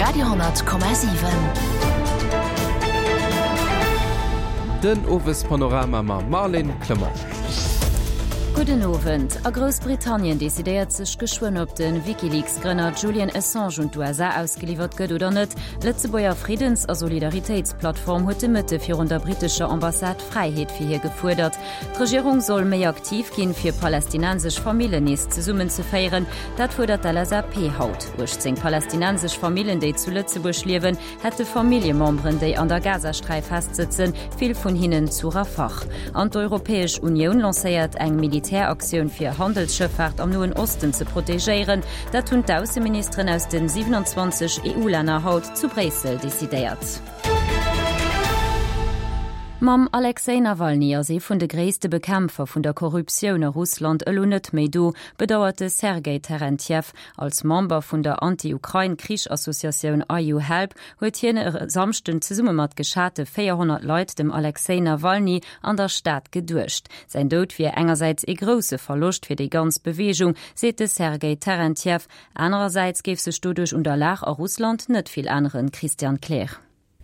Radio,7. Den Owespanorama mam Marlène Clement. Gudden Owend. A Groussbritannien decidéiert sech geschwënn, ob de WikiLeaks-Grënner Julian Assange un d'USA ausgeliwwert gëtt oder net. D'Lëtzebuerger Friddens a Solidaritéitsplattform huet de Mëtte virun der brittescher Ambassade Fräiheet fir hie gefuerdert. D'Regierung soll méi aktiv ginn, fir palästinensesch Famillen nees zesummenzeféieren. Dat fuerdert d'LSAP haut. 18 palästinensesch Famillen, déi zu Lëtzebuerg liewen, hätte Familljememberen, déi an der Gazasträif festsëtzen, vill vun hinnen zu Rafah. An d'Europäesch Unioun lancéiert eng Militäraktioun, fir Handelsschëffaart am Noen Osten ze protegéieren. Dat hunn d'Ausseministeren aus de 27 EU-Länner haut zu Bréissel decidéiert. Mam Alexej Nawalny ass ee vun de gréisste Bekämpfer vun der Korruptioun a Russland elo net méi do, bedauert de Sergej Terentjew. Als Member vun der Anti-Ukrain-Krich-Associatioun IU Help huet hien e Samschden zesumme mat geschate 400 Leit dem Alexej Nawalny an der Stad geduecht. Säin Doud wier engersäits ee grousse Verloscht fir déi ganz Beweegung, seet de Sergej Terentjew. Anerersäits géif sech doduerch un der Lag a Russland net vill änneren, Christian Kleer.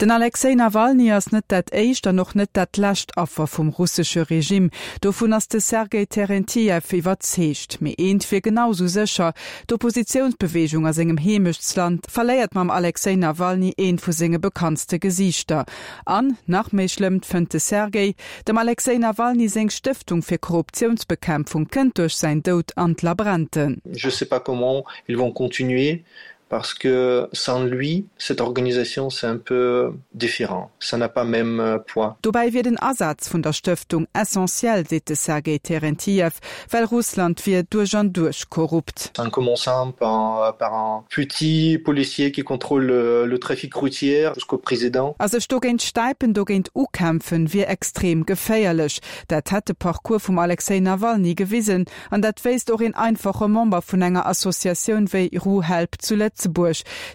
Den Alexej Nawalny ass net dat éischt an och net dat lescht Affer vum russesche Regime. Dovun ass de Sergej Terentjew iwwerzeegt. Mee eent wier genau sou sécher, D'Oppositiounsbeweegung a sengem Heemechtsland verléiert mam Alexej Nawalny eent vu senge bekanntste Gesiichter. An, nach méi schlëmm, fënnt de Sergej, Dem Alexej Nawalny seng Stëftung fir Korruptiounsbekämpfung kënnt duerch säin Doud an d'Labrente. Je sais pas comment ils vont continuer parce que sans lui cette organisation c'est un peu différent, ça n'a pas même poids. Dobäi wier den Asaz vun der Stëftung essentiell, seet de Sergei Terentiev, well Russland wier duerch an duerch korrupt. En commençant par par un petit policier qui contrôle le trafic routier jusqu'au président. A sech dogéint stäipen, dogéint ukämpfen, wier extrem geféierlech. Dat hätt de Parcours vum Alexej Nawalny gewisen. An dat wéisst och een einfache Member vun enger Associatioun wéi RuHelp zu Lëtzebuerg,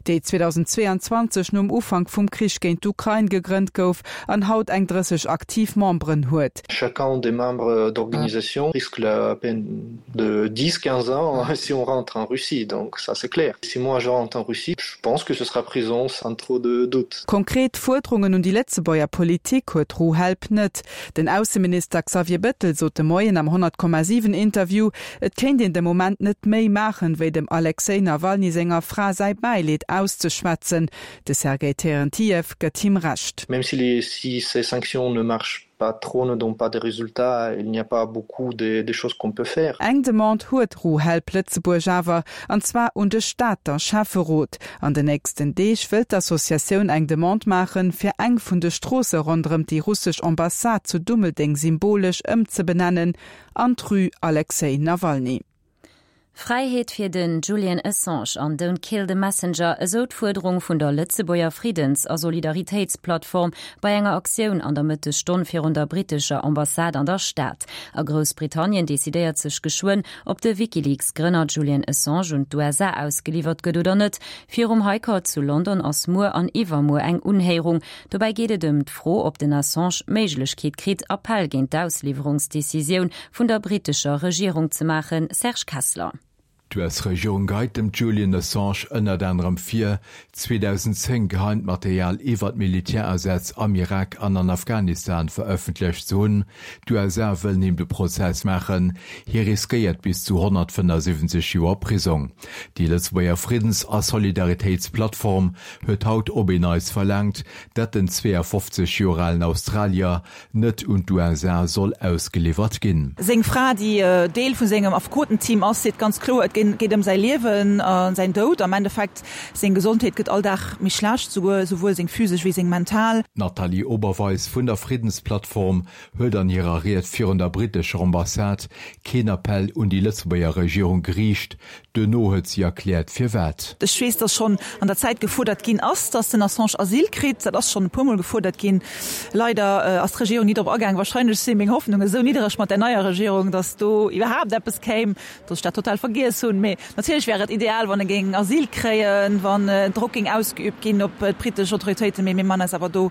déi 2022 nom Ufank vum Krich géint d'Ukrain gegrënnt gouf an haut eng 30 aktiv Memberen huet. Chacun des membres d'organisation risque la peine de 10, 15 ans si on rentre en Russie, donc ça c'est clair. Si moi je rentre en Russie, je pense que ce sera prison sans trop de doute. Konkret Fuerderungen un déi Lëtzebuerger Politik huet RuHelp net. Den Ausseminister Xavier Bettel sot de Moien am 100,7 Interview, et kéint een de Moment net méi maachen, wéi dem Alexej Nawalny senger Fra säi Bäileed auszeschwätzen. De Sergei Terentiev gëtt him Recht. Même si les si ces sanctions ne marchent pas trop, ne donnent pas de résultats, il n'y a pas beaucoup de de choses qu'on peut faire. Eng Demande huet RuHelp Lëtzebuerg awer, an zwar un de Stater Schäfferot. An den nächsten Deeg wëllt d'Associatioun eng Demande maachen, fir eng vun de Stroosse ronderëm déi russesch Ambassade zu Dummeldeng symbolesch ëmzebenennen an d'Rue Alexej Nawalny. Fräiheet fir den Julian Assange an Don't kill the messenger, esou d'Fuerderung vun der Lëtzebuerger Friddens a Solidaritéitsplattform bei enger Aktioun an der Mëttesstonn virun der brittescher Ambassade an der Stad. A Groussbritannien decidéiert sech geschwënn, ob de WikiLeaks-Grënner Julian Assange un d'USA ausgeliwwert gëtt oder net. Virum High Court zu London ass muer an iwwermuer eng Unhéierung. Dobäi geet et ëm d'Fro, ob den Assange d'Méiglechkeet kritt, Appell géint d'Ausliwwerungsdecisioun vun der brittescher Regierung ze maachen. Serge Kessler. D'US-Regierung geheit dem Julian Assange ënnert anerem vir, 2010 geheimt Material iwwert Militärasätz am Irak an an Afghanistan verëffentlecht ze hunn. D'USA wëllen him de Prozess maachen, hie riskéiert bis zu 175 Joer Prisong. Déi Lëtzebuerger Friddens a Solidaritéitsplattform huet haut op een Neits verlaangt, dat den 52 Joer alen Australier net un d'USA soll ausgeliwwert ginn. Seng Fra, déi Deel vu sengem Affekotenteam ass, seet ganz kloer, et geet ëm säi Liewen a säin Doud. Am Endeffekt, seng Gesondheet gëtt all Dag méi schlecht, souguer souwuel seng physesch wéi seng mental. D'Nathalie Oberweis vun der Friddensplattform huet an hirer Ried virun der brittescher Ambassade keen Appell un déi Lëtzebuerger Regierung geriicht. Duerno huet si erkläert firwat. Ech weess, dass schonn an der Zäit gefuerdert ginn ass, dass den Assange Asyl kritt. Dat ass schonn e puermol gefuerdert ginn. Leider ass d'Regierung ni drop agaang. Wahrscheinlech si meng Hoffnungen esou niddereg mat där neier Regierung, dass do iwwerhaapt eppes kéim, dass ech dat total vergiess hunn. Mee natierlech wär et ideal, wann e géing Asyl kréien, wann Drock géing ausgeübt ginn op d'brittesch Autoritéiten. Mee mir man eis awer do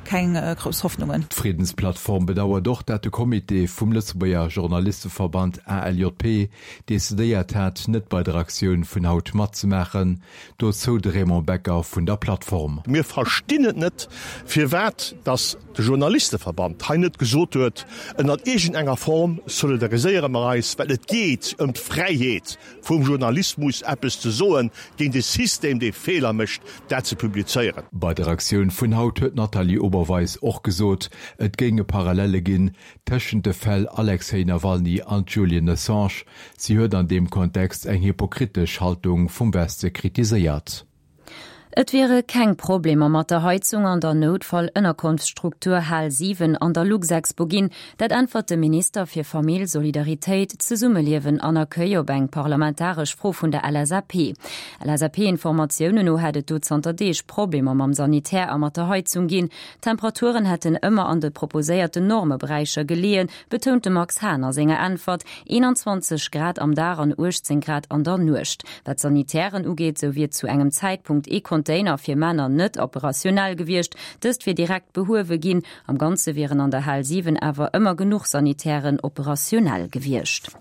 keng grouss Hoffnungen. D'Friddensplattform bedauert och, dat de Comité vum Lëtzebuerger Journalisteverband ALJP decidéiert hat, net bei der. der Aktioun vun haut matzemaachen. Dozou de Raymond Becker vun der Plattform. Mir verstinn et net, firwat dass de Journalisteverband hei net gesot huet, ënnert iergend enger Form solidariséiere mer eis, well et geet ëm d'Fräiheet vum Journalismus, eppes ze soen géint e System, dee Feeler mécht, dat ze publizéieren. Bei der Aktioun vun haut huet d'Nathalie Oberweis och gesot, et géinge Parallelle ginn tëschent de Fäll Alexej Nawalny an Julian Assange. Si huet an deem Kontext eng hypokritesch Haltung vum Weste kritiséiert. Et wiere keng Problemer mat der Heizung an der Noutfall-Ënnerkonftsstruktur Hal 7 an der Luxexpo ginn. Dat äntwert de Minister fir Famill, Solidaritéit, Zesummeliewen an Accueil op eng parlamentaresch Fro vun der LSAP. LSAP-Informatiounen no hätt et do zanter Deeg Problemer mam Sanitär a mat der Heizung ginn. D'Temperaturen hätten ëmmer an de proposéierten Normeberäicher geleeën, betount de Max Hahn a senger Äntwert, 21 Grad am Dag an 18 Grad an der Nuecht. Wat d'Sanitären ugeet, sou wier zu engem Zäitpunkt ee Container fir Männer net operationell gewiescht. Dëst wier direkt behuewe ginn. Am Ganze wieren an der Hal 7 awer ëmmer genuch Sanitären operationell gewiescht.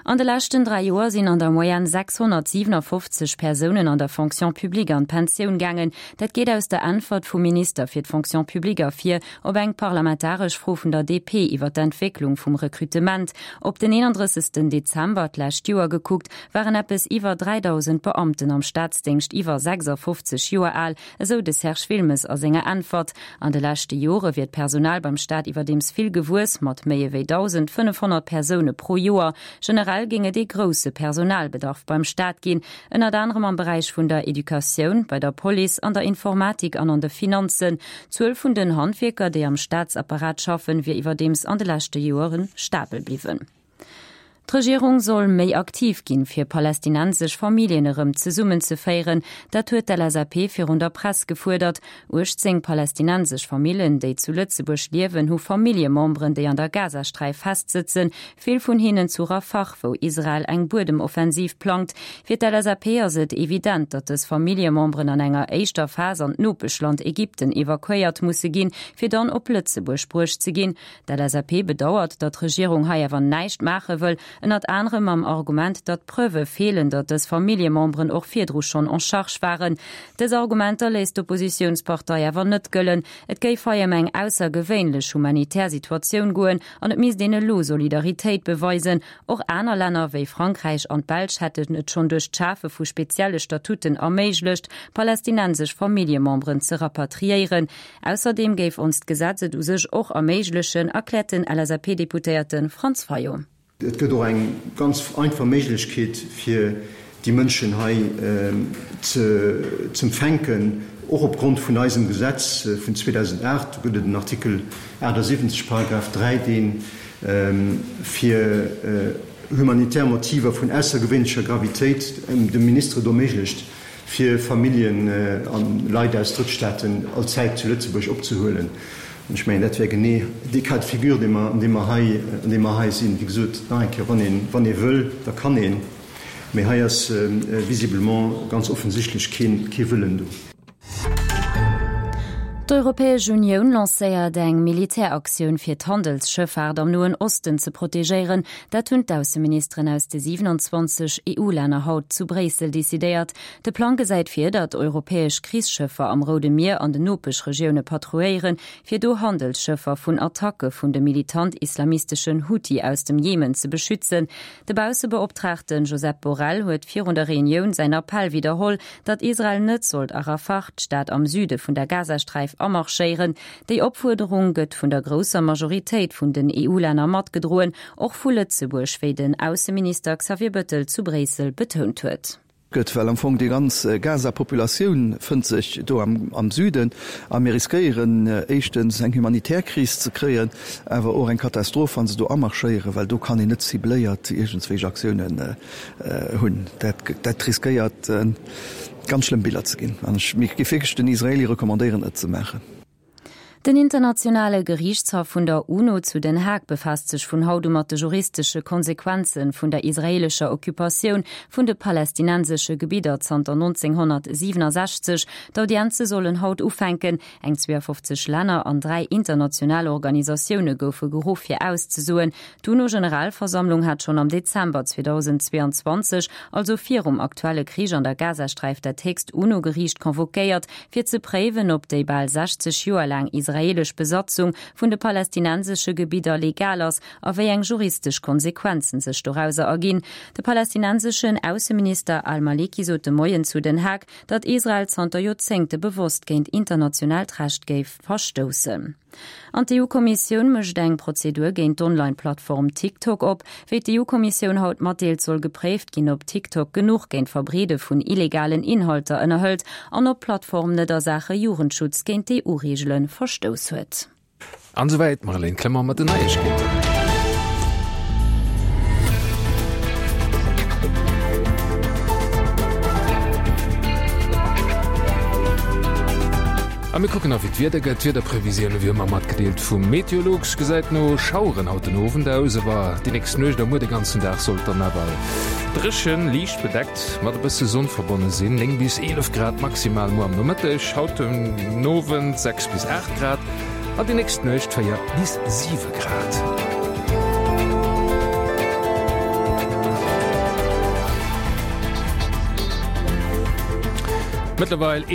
An de leschten 3 Joer sinn an der Moyenne 657 Persounen an der Fonction publique an d'Pensioun gaangen. Dat geet aus der Äntwert vum Minister fir d'Fonction publique ervir op eng parlamentaresch Fro vun der DP iwwer d'Entwécklung vum Rekrutement. Op den 31 Dezember d'lescht Joer gekuckt, waren eppes iwwer 3.000 Beamten am Staatsdéngscht iwwer 56 Joer al, esou de Serge Wilmes a senger Äntwert. An de leschte Jore wier d'Personal beim Staat iwwerdeems vill gewuess, mat méi ewéi 1.500 Persoune pro Joer. Generell géing et ee grousse Personalbedarf beim Staat ginn, ënnert anerem am Beräich vun der Educatioun, bei der Police, an der Informatik an an de Finanzen. D'Zuel vun den Handwierker, déi am Staatsapparat schaffen, wier iwwerdeems an de leschte Joere stabel bliwwen. D'Regierung soll méi aktiv ginn, fir palästinensesch Familljen erëm zesummenzeféieren. Dat huet d'LSAP virun der Press gefuerdert. 18 palästinensesch Famillen, déi zu Lëtzebuerg liewen, hu Familljememberen, déi an der Gazasträif festsëtzen. Vill vun hinnen zu Rafah, wou Israel eng Buedemoffensiv plangt. Fir d'LSAP ass et evident, datt dës Familljememberen an enger éischter Phas an d'Nopeschland Ägypten evakuéiert musse ginn, fir dann op Lëtzebuerg bruecht ze ginn. D'LSAP bedauert, datt d'Regierung hei awer näischt maache wëll, ënnert anerem mam Argument, datt Preuve feelen, datt dës Familljememberen och virdru schonn en charge waren. Dës Argumenter léisst d'Oppositiounspartei awer net gëllen. Et géif hei ëm eng aussergewéinlech humanitär Situatioun goen an et misst een elo Solidaritéit beweisen. Och aner Länner wéi Frankräich an d'Belsch hätten et schonn duerch d'Schafe vu spezielle Statuten erméiglecht, palästinensesch Familljememberen ze rapatriéieren. Ausserdeem géif onst Gesetz et u sech och erméiglechen, erkläert den LSAP-Deputéierte Franz Fayot. Et gëtt och eng ganz einfach Méiglechkeet, fir déi Mënschen hei z'empfänken, och opgrond vun eisem Gesetz vun 2008. Do gëtt et en Artikel 78, Paragraph 3, dee fir humanitär Motiver vun aussergewéinlecher Gravitéit dem Minister et erméiglecht, fir Familljen a Leit aus Drëttstaaten allzäit zu Lëtzebuerg opzehuelen. An ech mengen, dat wär genee dee Cas de figure, dee mer, an deem mer hei, an deem mer hei sinn. Wéi gesot, nach eng Kéier, wann een, wann ee wëll, da kann een. Mee hei ass visiblement ganz offensichtlech keen, kee Wëllen do. D'Europäesch Unioun lancéiert eng Militäraktioun fir d'Handelsschëffaart am Noen Osten ze protegéieren. Dat hunn d'Ausseministeren aus de 27 EU-Länner haut zu Bréissel decidéiert. De Plang gesäit vir, datt europäesch Krichsschëffer am Roude Mier an den Nopeschregioune patrouilléieren, fir do Handelsschëffer vun Attacke vun de militant-islamisteschen Huthi aus dem Jemen ze beschützen. De Baussebeoptraagte Josep Borrell huet virun der Reunioun säin Appell widderholl, datt Israel net sollt a Rafah, d'Stad am Süde vun der Gazasträif, amarschéieren. Déi Opfuerderung gëtt vun der grousser Majoritéit vun den EU-Länner matgedroen, och vu Lëtzebuerg, wéi den Ausseminister Xavier Bëttel zu Bréissel betount huet. Gëtt, well am Fong déi ganz Gaza-Populatioun fënnt sech do am Süden a mir riskéieren éischtens eng humanitär Kris ze kréien, awer och eng Katastroph, wa se do amarschéieren, well do kann een net cibléiert iergendswéich Aktiounen hunn. Dat, dat riskéiert ganz schlëmm Biller ze ginn an ech, mir géif wierklech den Israelie recommandéieren et ze maachen. Den internationale Geriichtshaff vun der UNO zu Den Haag befaasst sech vun haut u mat de juristesche Konsequenze vun der israeelescher Occupatioun vun de palästinensesche Gebidder zanter 1967. D'Audienze sollen haut ufänken. Eng 52 Länner an 3 international Organisatioune goufe geruff fir auszesoen. D'UNO-Generalversammlung hat schonn am Dezember 2022, also virum aktuelle Krich an der Gazasträif, dat héchst UNO-Geriicht convoquéiert, fir ze préiwen, ob déi bal 60 Joer laang israeelesch Besatzung vun de palästinensesche Gebidder legal ass a wéi eng juristesch Konsequenzen sech dorauser erginn. De palästinenseschen Ausseminister al-Maliki sot de Moien zu Den Haag, datt Israel zanter Joerzéngte bewosst géint internationaalt Recht géif verstoussen. An d'EU-Kommissioun mécht eng Prozedur géint d'Online-Plattform TikTok op. Wéi d'EU-Kommissioun haut matdeelt, soll gepréift ginn, ob TikTok genuch géint d'Verbreede vun illegalen Inhalter ënnerhëlt an ob d'Plattform net a Saache Jugendschutz géint d'EU-Reegele verstouss huet. An esouwäit d'Marlène Clement mat den Neiegkeeten. A mir kucken nach wéi d'Wieder gëtt. D'Wiederprevisioune wéi ëmmer matgedeelt vum Meteolux. Gesäit no Schaueren haut den Owend aus, awer déi nächst Nuecht a muer de ganzen Dag sollt dann awer dréchen, liicht bedeckt mat e bësse Sonn verbonne sinn. 9 bis 11 Grad maximal muer am Nomëtteg, haut den Owend 6 bis 8 Grad an déi nächst Nuecht 4 bis 7 Grad. Mëttlerweil.